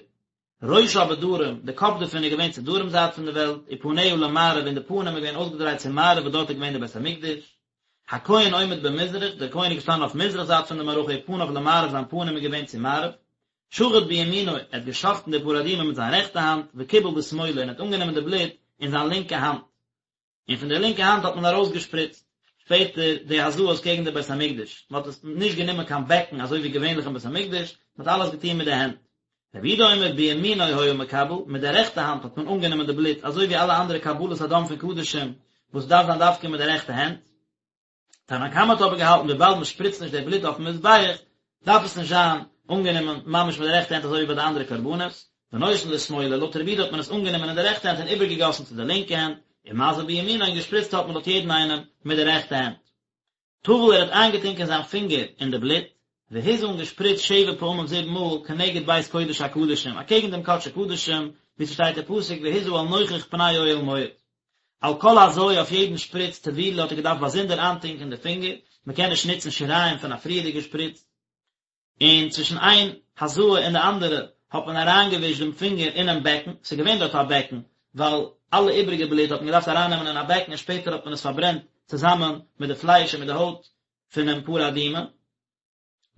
ראשה בדרום, די קאפ דערפון איז געווען צו דרום זייט פון די וועלט, ופניה למערב און די פנים איז געווען אויסגעדרייט צו מערב וואס דארט איז געווען די בית המקדש. הכהן עומד במזרח, דער כהן איז געשטאנען אויף מזרח זייט פון די מערכה ופניו למערב זיין פנים איז געווען צו מערב. שחט בימינו, ער האט געשחטן די פרה אדומה מיט זיין רעכטע האנט, וקיבל בשמאלו און האט אנגענומען די בלוט אין זיין לינקע האנט. און פון די לינקע האנט האט מען ארויסגעשפריצט שפעטער די הזאות קעגן די בית המקדש, מען האט עס נישט גענומען קיין בעקן אזוי ווי געווענליך אין בית המקדש, מען האט אלעס געטון מיט די הענט. רבי יהודה אומר בימינו היה מקבל, מיט די רעכטע האנט האט מען אנגענומען די בלוט אזוי ווי אלע אנדערע קבלת הדם פון קדשים וואס דארף זיין דווקא מיט די רעכטע הענט. תנא קמא האט אבער געהאלטן וויבאלד מען שפריצט נישט די בלוט אויפן מזבח דארף עס נישט זיין אנגענומען ממש מיט די רעכטע הענט אזוי ווי ביי די אנדערע קרבנות, ונותן לשמאלו, לויט רבי יהודה האט מען עס אנגענומען אין די רעכטע הענט און איבערגעגאסן צו די לינקע הענט, ומזה בימינו און געשפריצט האט מען לויט יעדן איינעם מיט די רעכטע הענט. טבל ער האט איינגעטונקען זיין פינגער אין די בלוט, והזה און געשפריצט שבע פעמים זיבן מאל כנגד בית קודש הקדשים, אקעגן דעם קדשי קדשים, ווי ס'שטייט אין פסוק והזה אל נוכח פני אוהל מועד. על כל הזיה אויף יעדן שפריץ טבילה האט ער געדארפט באזונדער איינטונקען די פינגער, מען קען נישט נוצן שיריים פון א פריערדיגע שפריץ, און צווישן איין הזאה און די אנדערע האט מען אריינגעווישט דעם פינגער אינעם בעקן, ס'איז געווען דארט א בעקן, ווייל אלע איבריגע בלוט האט מען געדארפט ארייננעמען אין א בעקן און שפעטער האט מען עס פארברענט צוזאמען מיט די פלייש און מיט די הויט פונעם פרה אדומה.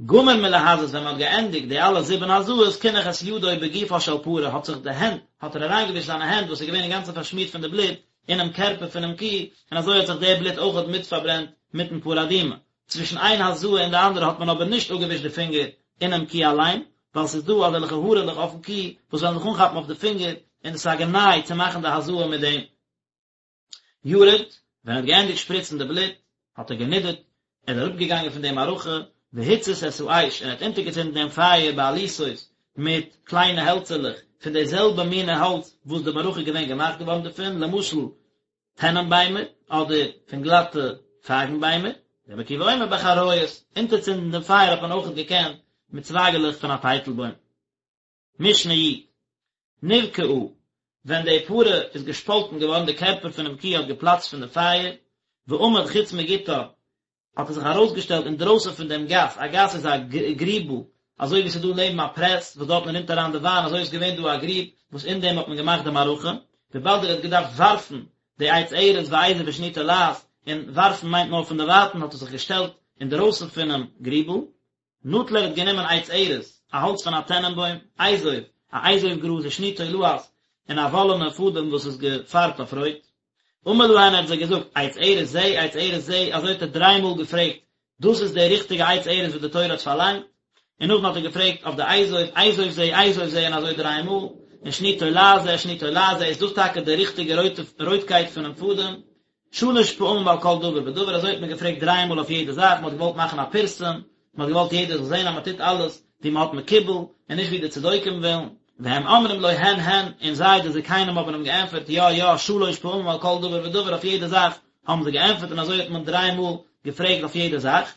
גמר מלהזות ווען מען האט געענדיגט די אלע זיבן הזאות קינח את ידו בגופה של פרה האט זיך די הענט האט ער אריינגעווישט זיינע הענט וואס איז געווען אינגאנצן פארשמירט פון די בלוט אינעם קערפער פונעם קו און אזוי האט זיך די בלוט אויכעט מיט פארברענט מיטן פרה אדומה צווישן איין הזאה און די אנדערע האט מען אבער נישט אפגעווישט די פינגער אינעם קו אליין ווייל ס'איז דא אזעלכע הארעלעך אויפן קו וואס וועלן זיך אנכאפן אויף די פינגער און עס איז א גנאי צו מאכן די הזאה מיט דעם. ירד, ווען ער האט געענדיגט שפריצן די בלוט, האט ער גענידערט, ער איז אראפגעגאנגען פון די מערכה, והצית את האש, און ער האט אונטערגעצינדן דעם פייער בעליתות, מיט קליינע העלצערלעך, פון די זעלבע מינע האלץ וואס די מערכה איז געווען געמאכט געווארן דערפון, למשל, טענענביימער, אדער פון גלאטע פייגנביימער, רבי עקיבא אומר בחריות, אונטערצינדן דעם פייער האט מען אויכעט געקענט מיט צווייגעלעך פון א טייטלבוים. משנה י. נבקעה, ווען די פרה איז געשפאלטן געווארן, די קערפער פונעם קו האט געפלאצט פון די פייער, ועמד חוץ מגתה, האט ער זיך ארויסגעשטעלט אינדרויסן פון דעם גת, א גת איז א גריבל, אזוי ווי ס'איז דא לעבן א פרעס וואס דארטן רינט אריין די וויין, אזוי איז געווען דא א גריב וואס אין דעם האט מען געמאכט די מערכה, וויבאלד ער האט געדארפט ווארפן די עץ ארז ואזוב ושני תולעת, און ווארפן מיינט נאר פון דערווייטן, האט ער זיך געשטעלט אינדרויסן פונעם גריבל, נטל ער האט גענומען עץ ארז, א האלץ פון א טענענבוים, אזוב, א אזוב גראז ושני תולעת, און א וואלענע פאדעם וואס איז געפארבט אויף רויט. אמר להן ער האט זיי געזאגט, עץ ארז זה, עץ ארז זה, אזוי האט ער דריי מאל געפרעגט, דאס איז די ריכטיגע עץ ארז וואס די תורה האט פארלאנגט? און נאכדעם האט ער געפרעגט אויף די אזוב, אזוב זה, אזוב זה, און אזוי דריי מאל, און שני תולעת זה, שני תולעת זה, איז דאס טאקע די ריכטיגע רויטקייט פונעם פאדעם? שלש פעמים על כל דבר ודבר, אזוי האט מען געפרעגט דריי מאל אויף יעדע זאך, מען האט געוואלט מאכן א פירסום, מען האט געוואלט יעדער זאל זען אז מען טוט אלעס ווי מען האט מקובל, און נישט ווי די צדוקים ווילן, והם אומרים לו הן הן, און זיי די זקנים האבן אים געענטפערט יא יא, שלש פעמים על כל דבר ודבר, אויף יעדע זאך האבן זיי געענטפערט און אזוי האט מען דריי מאל געפרעגט אויף יעדע זאך.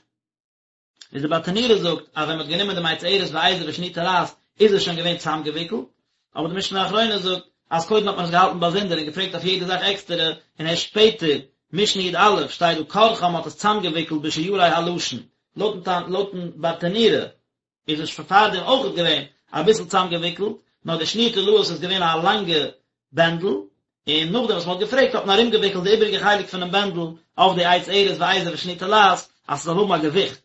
איז די ברטנורא זאגט אז ווען מען האט גענומען דעם עץ ארז ואזוב ושני תולעת. איז עס שוין געווען צוזאמגעוויקלט, אבער די משנה אחרונה זאגט אז קודם האט מען עס געהאלטן באזונדער און געפרעגט אויף יעדע זאך עקסטערע, און ערשט שפעטער, משנה י"א, שטייט דא כרכן מ'האט עס צוזאמגעוויקלט בשיירי הלשון, לויטן ברטנורא איז עס שוין פארדעם אויכעט געווען אביסל צוזאמגעוויקלט, נאר די שניר תולעת איז געווען א לאנגע בענדל, און נאכדעם וואס מען האט געפרעגט האט מען ארומגעוויקלט די איבעריגע חלק פונעם בענדל אויף די עץ ארז ואזוב ושני תולעת אז ס'זאל האבן א געוויכט,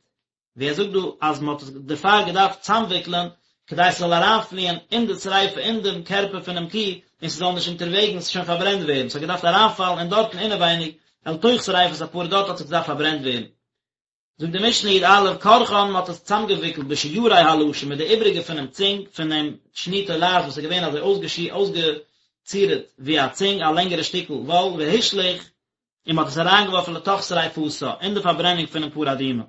ווי ער זאגט דא אז מען האט עס דערפאר געדארפט צוזאמוויקלען כדי ס'זאל אריינפליען אין די שריפה אין דעם קערפער פונעם קי און ס'זאל נישט אונטערוועגנס שוין פארברענט ווערן, ס'האט געדארפט אריינפאלן אין דארטן אינעווייניג אל תוך שריפת הפרה דארט האט עס געדארפט פארברענט ווערן. זאגט די משנה י"א, כרכן מען האט עס צוזאמגעוויקלט בשיירי הלשון מיט די איבריגע פונעם צונג פונעם שני תולעת וואס איז געווען אזוי אויסגעצירט ווי א צונג א לענגערע שטיקל וואל והושלך און מען האט עס אריינגעווארפן לתוך שריפתה אין די פארברענונג פונעם פרה אדומה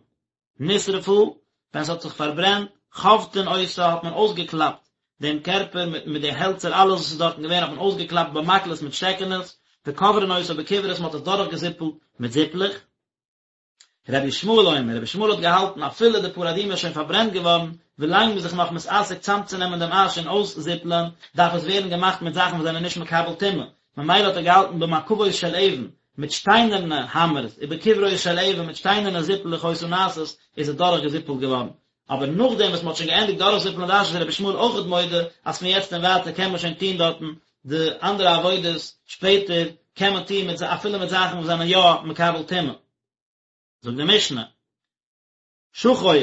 נשרפה ווען עס האט זיך פארברענט חובטין אותה האט מען אויסגעקלאפט דעם קערפער מיט מיט די העלצער אלעס וואס איז דארטן געווען האט מען אויסגעקלאפט במקלות מיט שטעקענעס וכוברין אותה בכוורות מען האט עס דורכגעזיפלט מיט זיפלעך. רבי ישמעאל אומר, רבי ישמעאל האט געהאלטן אפילו די פרה אדומה איז שוין פארברענט געווארן, ווילאנג מ'איז זיך נאך מתעסק צאמצונעמען דעם אש און אויסזיפלען, דארף עס ווערן געמאכט מיט זאכן וואס זענען נישט מקבל טומאה, ממילא האט ער געהאלטן במקבות של אבן, מיט שטיינערנע האמערס, ובכוורות של אבן, מיט שטיינערנע זיפלעך היתה נעשית, איז עס דורכגעזיפלט געווארן. אבער נאכדעם וואס מ'האט שוין געענדיגט דורכזיפלען די אש איז רבי ישמעאל אויכעט מודה אז פון יעצט און ווייטער קען מען שוין טון דארטן די אנדערע עבודות, שפעטער קען מען טון מיט אפילו מיט זאכן וואס זענען יא מקבל טומאה. זאגט די משנה, שחור,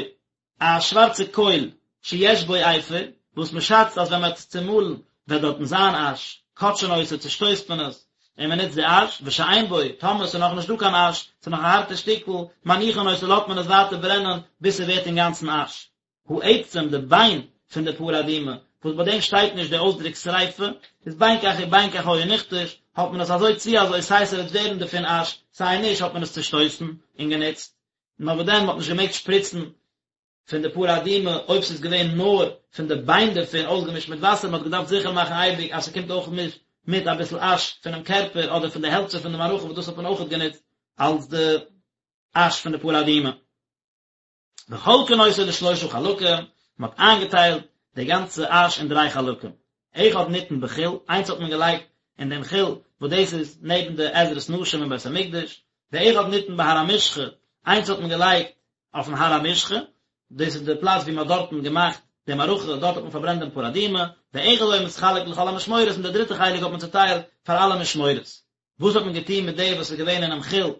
א שווארצע קויל, שיש בו אפר, וואס מען שאצט אז ווען מען וועט עס צומאלן וועט דארטן זיין אש, כותשין אותו, צושטויסט מען עס, און מען נוצט די אש, ושאין בו, טאמער ס'איז נאכנישט דא קיין אש, ס'איז נאך א הארטע שטיקל, מניחין אותו לאזט מען עס ווייטער ברענען ביז ס'ווערט אינגאנצן אש. העצם, די ביין פון די פרה אדומה, וואס ביי דעם שטייט נישט די אויסדרוק שריפה, איז בין כך ובין כך היה נכתש, האט מען עס אזוי צי אזוי סיי ס'וועט ווערן דערפון אש, סיי נישט האט מען עס צושטויסן און גענוצט. נאר וואס דען, מ'האט נישט געמעגט שפריצן פון די פרה אדומה אויב ס'איז געווען נאר פון די ביין דערפון אויסגעמישט מיט וואסער, מ'האט געדארפט זיכער מאכן אייביג אז ס'קומט אויך מיט מיט אביסל אש פונעם קערפער אדער פון די העלצער פון די מערכה וואס דאס האט מען אויכעט גענוצט אלס די אש פון די פרה אדומה. וחולקין אותו לשלושה חלקים, מ'האט איינגעטיילט די גאנצע אש אין דריי חלקים, אחד ניתן בחיל, איינס האט מען געלייגט אין דעם חיל וואס דאס איז נעבן די עזרת נשים אין בית המקדש, ואחד ניתן בהר המשחה, איינס האט מען געלייגט אויפן הר המשחה, דאס איז די פלאץ ווי מען האט דארטן געמאכט די מערכה, דארט האט מען פארברענט דעם פרה אדומה, ואחד היה מתחלק לכל המשמורות, און די דריטע חלק האט מען צוטיילט פאר אלע משמורות. וואס האט מען געטון מיט די וואס איז געווען אינעם חיל,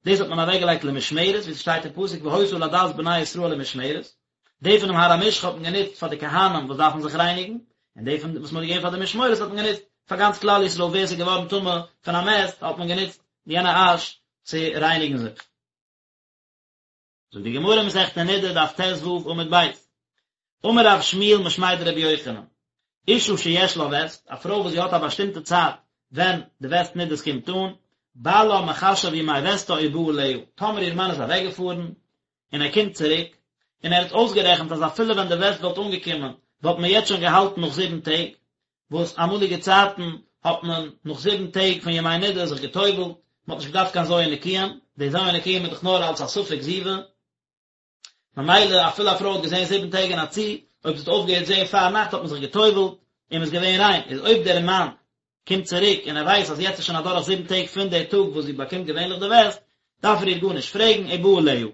דאס האט מען אוועקגעלייגט למשמרת, ווי ס'שטייט אין פסוק והיתה לעדת בני ישראל למשמרת, די פונעם הר המשחה האט מען גענוצט פאר די כהנים וואס דארפן זיך רייניגן, און די פון וואס מען האט געגעבן פאר די משמורות האט מען גענוצט פאר גאנץ כלל ישראל ווער ס'איז געווארן טמא פון א מת האט מען גענוצט יענע אש צו רייניגן זיך. זאגט די גמרא מסכת נדה דף ט"ו עמוד ב', אמר רב שמואל משמיה דרבי יוחנן, אשה שיש לה וסת, א פרוי וואס זי האט א באשטימטע צייט ווען די וסת נדות קומט אן, בעלה מחשב ימי וסתה ובא עליה, טאמער איר מאן איז אוועקגעפארן, און ער קומט צוריק, און ער האט אויסגערעכנט אז אפילו ווען די וסת וואלט אנגעקומען, וואלט מען יעצט שוין געהאלטן נאך זיבן טעג, וואס אמאליגע צייטן האט מען נאך זיבן טעג פון ימי נדה זיך גע'טובל'ט, מען האט נישט געדארפט קיין ז' נקיים, די ז' נקיים איז דאך נאר אלס א ספק זיבה, ממילא אפילו א פרוי האט געזען זיבן טעג אין א צי, אויב זי האט אויפגעהערט זען פאר נאכט האט מען זיך גע'טובל'ט און מען איז געווען ריין, איז אויב דער מאן קומט צוריק און ער ווייסט אז יעצט איז שוין אדורך זיבן טעג פון די טאג וואס זי באקומט געווענליך די וסת, דארף ער איר גארנישט פרעגן, ובא עליה.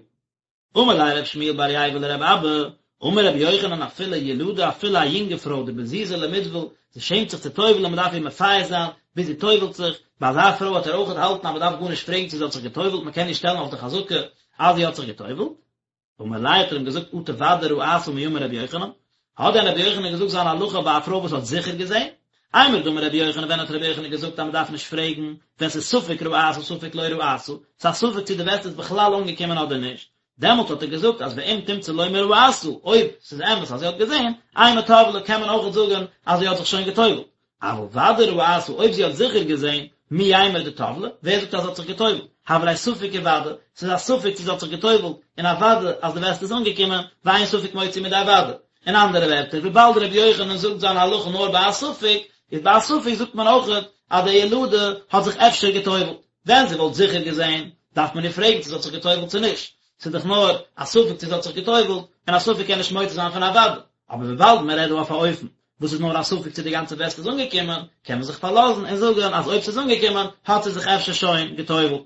אמר ליה רב שמואל בר ייבא לרב אבא, אמר רבי יוחנן אפילו ילדה אפילו א יונגע פרוי דבזיזא למיטבל, זי שעמט זיך צו טובל'ן מען דארף איר מפייס זיין ביז זי טובל'ט זיך, ביי אזא פרוי וועט ער אויכעט האלטן אז מען דארף גארנישט פרעגן צו זי האט זיך געטובל'ט מען קען איר שטעלן אויף די חזקה אז זי האט זיך געטובל'ט. אמר ליה האט ער אים געזאגט אטו ודאי ראתה מי אמר רבי יוחנן, האט דען רבי יוחנן געזאגט זיין הלכה ביי א פרוי וואס האט זיכער געזען? אימר דאמר רבי יוחנן ווען האט רבי יוחנן געזאגט אז מען דארף נישט פרעגן ווען ס'איז ספק ראתה ספק לא ראתה, ס'איז א ספק צו די וסת איז בכלל אנגעקומען אדער נישט, דעמאלט האט ער געזאגט אז ואם תמצא לומר ראתה, אויב ס'איז אמת אז זי האט געזען, אימא טבלה קען מען אויכעט זאגן אז זי האט זיך שוין גע'טובל'ט, אבל ודאי ראתה אויב זי האט זיכער געזען, מי יימר דטבלה, ווער זאגט אז זי האט זיך גע'טובל'ט, הוה ליה ספק וודאי, ס'איז א ספק צו זי האט זיך גע'טובל'ט, און א וודאי אז די וסת איז אנגעקומען, ואין ספק מוציא מידי וודאי. אין אנדערע ווערטער, וויבאלד רבי יוחנן זאגט זיין הלכה נאר ביי א ספק, איז ביי א ספק זאגט מען אויכעט אז די ילדה האט זיך אפשר גע'טובל'ט. ווען זי וואלט זיכער געזען, דארף מען איר פרעגן צו זי האט זיך גע'טובל'ט צו נישט. ס'איז דאך נאר א ספק צו זי האט זיך גע'טובל'ט, און א ספק קען נישט מוציא זיין פון א וודאי. אבער וויבאלד מען רעדט דא אויף א אופן וואס איז נאר א ספק צו די גאנצע וסת איז אנגעקומען, קען מען זיך פארלאזן און זאגן אז אויב ס'איז אנגעקומען האט זי זיך אפשר שוין גע'טובל'ט.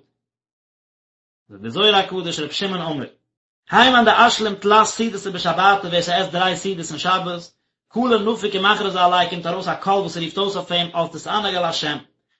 זאגט דער זוהר הקדוש ר' שמעון אמר. האי מאן דאשלים תלת סעודתא בשבתא ווער ס'עסט דריי סעודות אין שבת, קלא נפיק ומכרזא עליה קומט ארויס א קול וואס רופט אויס אויף אים אז תתענג על השם.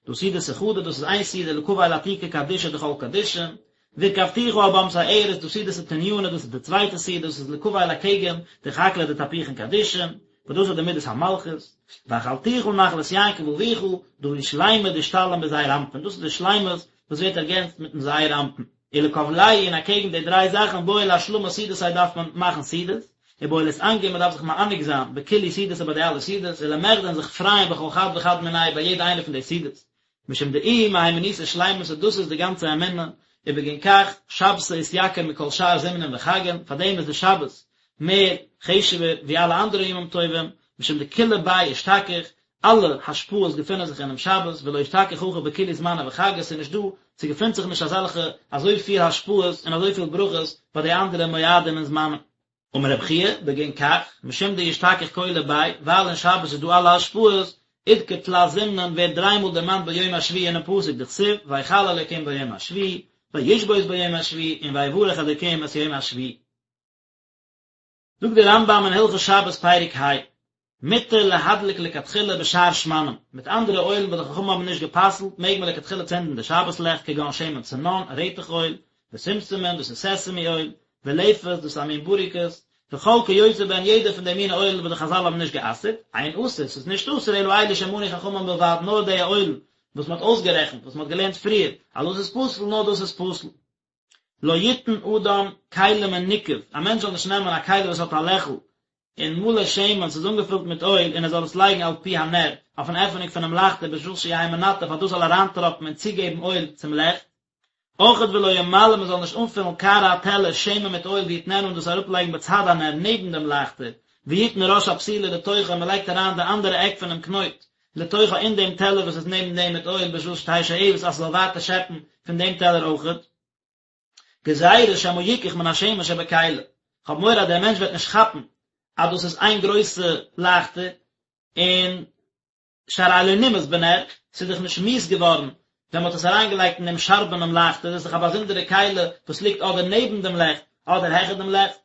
דא סעודתא חדא דאס איז איין סעודה לקבל עתיקא קדישא דכל קדישין, והרכבתיך על במתי ארץ דא סעודתא תניינא דאס איז די צווייטע סעודה דאס איז לקבל אקעגן דחקלא דתפוחין קדישין, וואס דאס איז די מידת המלכות, והחלתיך נחלת יעקב אביך, דא היא שלימא דאשתלים בזעיר אנפין דאס איז די שלימות וואס ווערט ערגענצט מיטן זעיר אנפין. ולקבלייהו און אקעגן די דריי זאכן בעי לאשלמא סעודתא דארף מען מאכן סעודות, ובעי לאתענגא מען דארף זיך מענג זיין בכולהו סעודתא ביי די אלע סעודות, ולמחדי און זיך פרייען בכל חד וחד מינייהו ביי יעדע איינע פון די סעודות. משום דאיהי מהימנותא שלימתא דאס איז די גאנצע אמונה, ובגין כך שבתא אתיקר מכל שאר זמנין וחגין, פאר דעם איז די שבת מער חשוב'ער ווי אלע אנדערע ימים טובים, משום דכולא ביה אשתכח, אלע השפעות געפינען זיך אינעם שבת, ולא אשתכח הכי בכולהו זמני וחגי, ס'איז נישט דא, ס'געפינט זיך נישט אזעלכע אזויפיל השפעות און אזויפיל ברכות ביי די אנדערע מועדים און זמנים. אמר רב חייא, בגין כך, משום דאשתכח כולא ביה, ווייל אין שבת איז דא אלע השפעות, אדכר תלת זימנין ווערט דריי מאל דערמאנט ביום השביעי אינעם פסוק דכתיב ויכל אלוקים ביום השביעי, וישבות ביום השביעי, און ויברך אלוקים את יום השביעי. זאגט דער רמב"ם אין הלכות שבת פרק ה, מותר להדליק לכתחילה בשאר שמנים, מיט אנדערע אוילן וואס די חכמים האבן נישט גע'פסל'ט מעג מען לכתחילה צינדן די שבת לעכט כגון שמן צנון, רעטעך אויל, ושומשמין, דאס איז סעסעמי אויל, ולפת, דאס איז א מין בוריקעס, וכל כיוצא בהן יעדע פון די מיני אוילן וואס די חזל האבן נישט גע'אסר'ט, אין אסור, ס'איז נישט אסור אלא אלו שמנו חכמים בלבד נאר די אוילן וואס מ'האט אויסגערעכנט, וואס מ'האט געלערנט פריער, אז דאס איז פסול, נאר דאס איז פסול. לא יתן אדם כלי מנוקב, א מענטש זאל נישט נעמען א כלי וואס האט א לעכל, און מלא שמן, ס'איז אנגעפילט מיט אויל, און ער זאל עס לייגן על פי הנר, אויפן עפענונג פונעם לייכטער בשביל שיהא מנטף אז דאס זאל אריינטראפן און צוגעבן אויל צום לעכט. אויכעט ולא ימלא מען זאל נישט אנפילן קערה א טעלער שמן מיט אויל ויתננה און דאס אראפלייגן בצד הנר נעבן דעם לייכטער, ויתן ראש הפתילה לתוכה און מען לייגט אריין די אנדערע עק פונעם קנויט לתוכה אין דעם טעלער וואס איז נעבן דעם מיט אויל בשביל שתהא שואבת אז ס'זאל ווייטער שעפן פון דעם טעלער אויכעט. גזירה שמא יקח מן השמן שבכלי, כ'האב מורא אז דער מענטש וועט נישט כאפן אז דאס איז איין גרויסע לייכטער, און שהרי לא נמאס בנר, ס'איז דאך נישט מיאוס געווארן ווען מ'האט עס אריינגעלייגט אין דעם שארבענעם לייכטער, דאס איז דאך א באזונדערע כלי וואס ליגט אדער נעבן דעם לעכט אדער העכער דעם לעכט.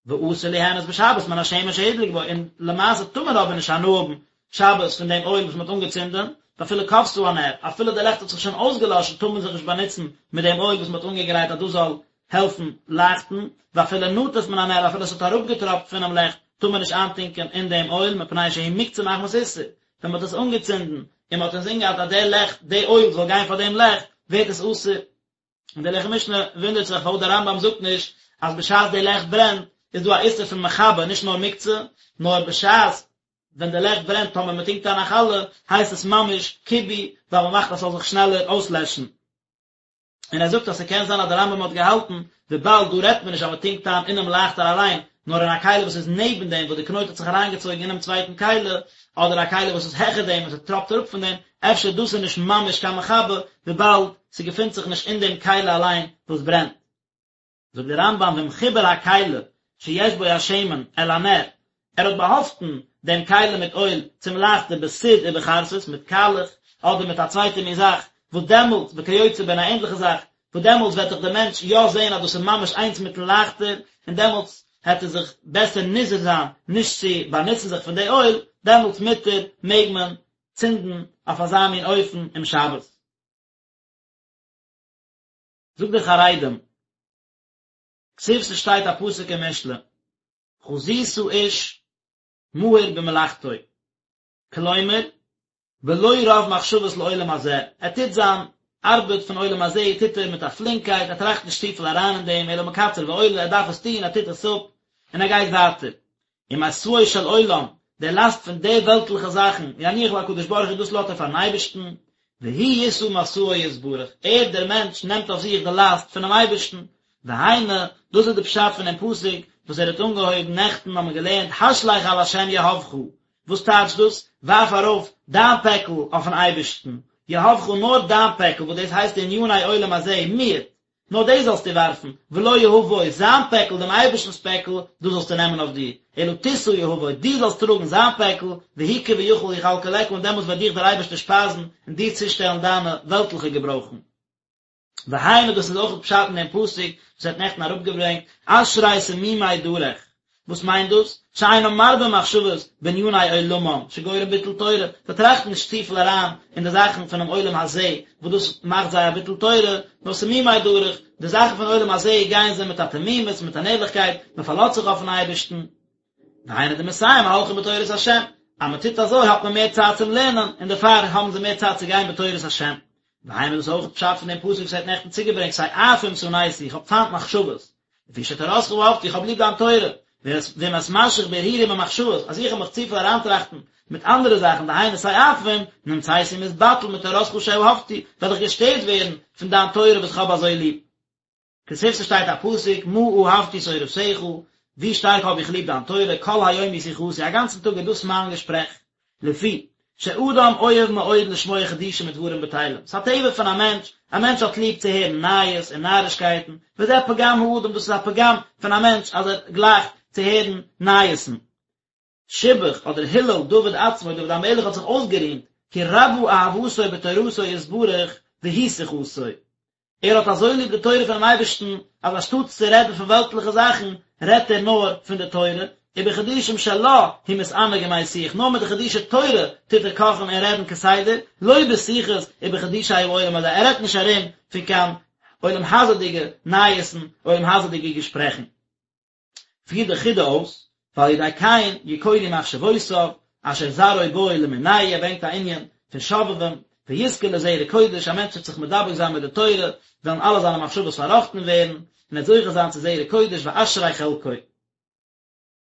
ואסור ליהנות בשבת מן השמן שהודלק בו, און למעשה טאר מען אבער נישט הנאה האבן שבת פון דעם אויל וואס מען האט אנגעצינדען, ואפילו כבתה הנר, אפילו די לעכט האט זיך שוין אויסגעלאשן טאר מען זיך נישט באנוצן מיט דעם אויל וואס מען האט אנגעגרייט אז דאס זאל העלפן לייכטן, ואפילו נטף מן הנר, אפילו עס האט אראפגעטראפט פונעם לעכט טאר מען נישט איינטונקען אין דעם אויל, מפני שהוא מוקצה מחמת איסור, ווען מען האט עס אנגעצינדן און מען האט אינזין געהאט אז דער לעכט, די אויל זאל גיין פאר דעם לעכט, ווערט עס אסור. און דער לחם משנה וואונדערט זיך פארוואס דער רמב"ם זאגט נישט אז בשעת די לעכט ברענט איז דא א איסור פון מכבה נישט נאר מוקצה, נאר בשעת ווען די לעכט ברענט טאמער מען טונקט איין א חלה הייסט עס ממש כיבוי ווייל מען מאכט אז ס'זאל זיך שנעלער אויסלעשן. און ער זאגט אז ס'קען זיין אז דער רמב"ם האט געהאלטן וויבאלד דא רעדט מען נישט אז מען טונקט איין אינעם לייכטער אליין, נאר אין א כלי וואס איז נעבן דעם וואס די קנויט האט זיך אריינגעצויגן אינעם צווייטן כלי, אדער א כלי וואס איז העכער דעם און ס'טראפט אראפ פון דעם, אפשר דאס איז נישט ממש קיין מכבה, וויבאלד ס'געפינט זיך נישט אין דעם כלי אליין וואס ברענט. זאגט דער רמב"ם ואם חיבר הכלי שיש בו השמן אל הנר, ער האט באהאפטן דעם כלי מיט אויל צום לייכטער בסיד ובחרסית, מיט קאלעך, אדער מיט א צווייטע מין זאך, וואס דעמאלטס, וכיוצא בהן א ענדליכע זאך, וואס דעמאלטס וועט דאך דער מענטש יא זען אז דאס איז ממש איינס מיטן לייכטער, און דעמאלטס העט ער זיך בעסער נזהר זיין נישט צו באנוצן זיך פון די אויל, דעמאלטס מותר, מעג מען צינדן אויף אזא מין אופן אום שבת. זאגט דער חרדים, כתיב ס'שטייט א פסוק אין משלי, חזית איש מהיר במלאכתו, כלומר, בלא רוב מחשבות לעולם הזה, ער טוט זיין ארבעט פון עולם הזה טוט ער מיט א פלינקייט, ער טראכט נישט צופיל אריין אין דעם, אלא מקצר ועולה, ער דארף עס טון, ער טוט עס אפ, און ער גייט ווייטער. ומשאו של עולם, די לאסט פון די וועלטליכע זאכן, יניח להקדוש ברוך הוא, דאס לאזט ער פארן אייבערשטן, והוא ישא משאו יתברך, ער דער מענטש נעמט אויף זיך די לאסט פונעם אייבערשטן, והיינו, דאס איז די פשט פון דעם פסוק וואס ער האט אנגעהויבן נעכטן האבן מיר געלערנט השלך על השם יהבך, וואס טייטשט דאס, ווארף ארויף דיין פעקל אויפן אייבערשטן, יהבך נאר דיין פעקל, וואס דאס הייסט עניני עולם הזה, מיעוט. נאר דאס זאלסטו ווארפן, ולא יהבו, זיין פעקל, דעם אייבערשטנ'ס פעקל, דאס זאלסטו נעמען אויף דיר, אלא תשא יהבו, דו זאלסט טראגן זיין פעקל, והוא כביכול יכלכלך, און דעמאלטס וועט דיך דער אייבערשטער שפייזן און דיר צושטעלן דיינע וועלטליכע געברויכן. והיינו דאס איז אויך פשט אין דעם פסוק וואס ער האט נעכטן אראפגעברענגט, אשרי תמימי דרך, וואס מיינט דאס? שאינם מרבים מחשבות בעניני עולמם, שגורם ביטול תורה, זיי טראכטן נישט צופיל אריין אין די זאכן פונעם עולם הזה, וואס דאס מאכט זיי א ביטול תורה, נאר תמימי דרך, די זאכן פון עולם הזה גייען זיי מיט א תמימות, מיט אן ערליכקייט, מען פארלאזט זיך אויפן אייבערשטן. והיינו דמסייע מהלכים בתורת השם, אז מען טוט אזוי האט מען מער צייט צום לערנען, און דערפאר האבן זיי מער צייט צו גיין בתורת השם. והיינו דאס איז אויך פשט פון דעם פסוק וואס ער האט נעכטן צוגעברענגט, תועפים שנאתי, איך האב פיינט מחשבות, לפי שתורתך אהבתי, איך האב ליב דיין תורה, ואם אתמשך בהרהורים ומחשבות, אז איך וועל מיך צופיל אריינטראכטן מיט אנדערע זאכן, דהיינו תועפים, נמצאתי מתבטל מתורתך שאהבתי, וועל איך געשטערט ווערן פון דיין תורה וואס איך האב אזוי ליב. כתיב ס'שטייט א פסוק, מה אהבתי תורתך, ווי שטארק האב איך ליב דיין תורה, כל היום היא שיחתי, א גאנצן טאג איז דאס מיין געשפרעך. לפי שאדם אוהב מאוד לשמוע חידושים ודברים בטלים, ס'איז א טבע פון א מענטש, א מענטש האט ליב צו הערן נייעס און נארישקייטן, וזה פגם האדם, דאס איז א פגם פון א מענטש אז ער גלייכט צו הערן נייעסן. שיבח אדער הילל דוד עצמו, דוד המלך האט זיך אויסגערימט, כי רבה אהבתו בתורתו יתברך והיא שיחתו. ער האט אזוי ליב די תורה פונעם אייבערשטן, אז אנשטאטס צו רעדן פון וועלטליכע זאכן, רעדט ער נאר פון די תורה, ובחידושים שלה הוא מתענג ומשיח, נאר מיט די חידושי תורה טוט ער קאכן און רעדן כסדר, לא בשיחות ובחידושי העולם הזה, ער רעדט נישט ארום פון קיין עולם הזה'דיגע נייעסן, עולם הזה'דיגע געשפרעכן. פירט די חידא אויס, ועל ידי כן יכונו מחשבותיו, אשר זרעו בו למינהו, ער ברענגט א ענין פון שובבים, ויזכה לזרע קודש, א מענטש וועט זיך מדבק זיין מיט די תורה, וועלן אלע זיינע מחשבות פארראכטן ווערן, און ער וועט זוכה זיין צו זרע קודש ואשרי חלקו.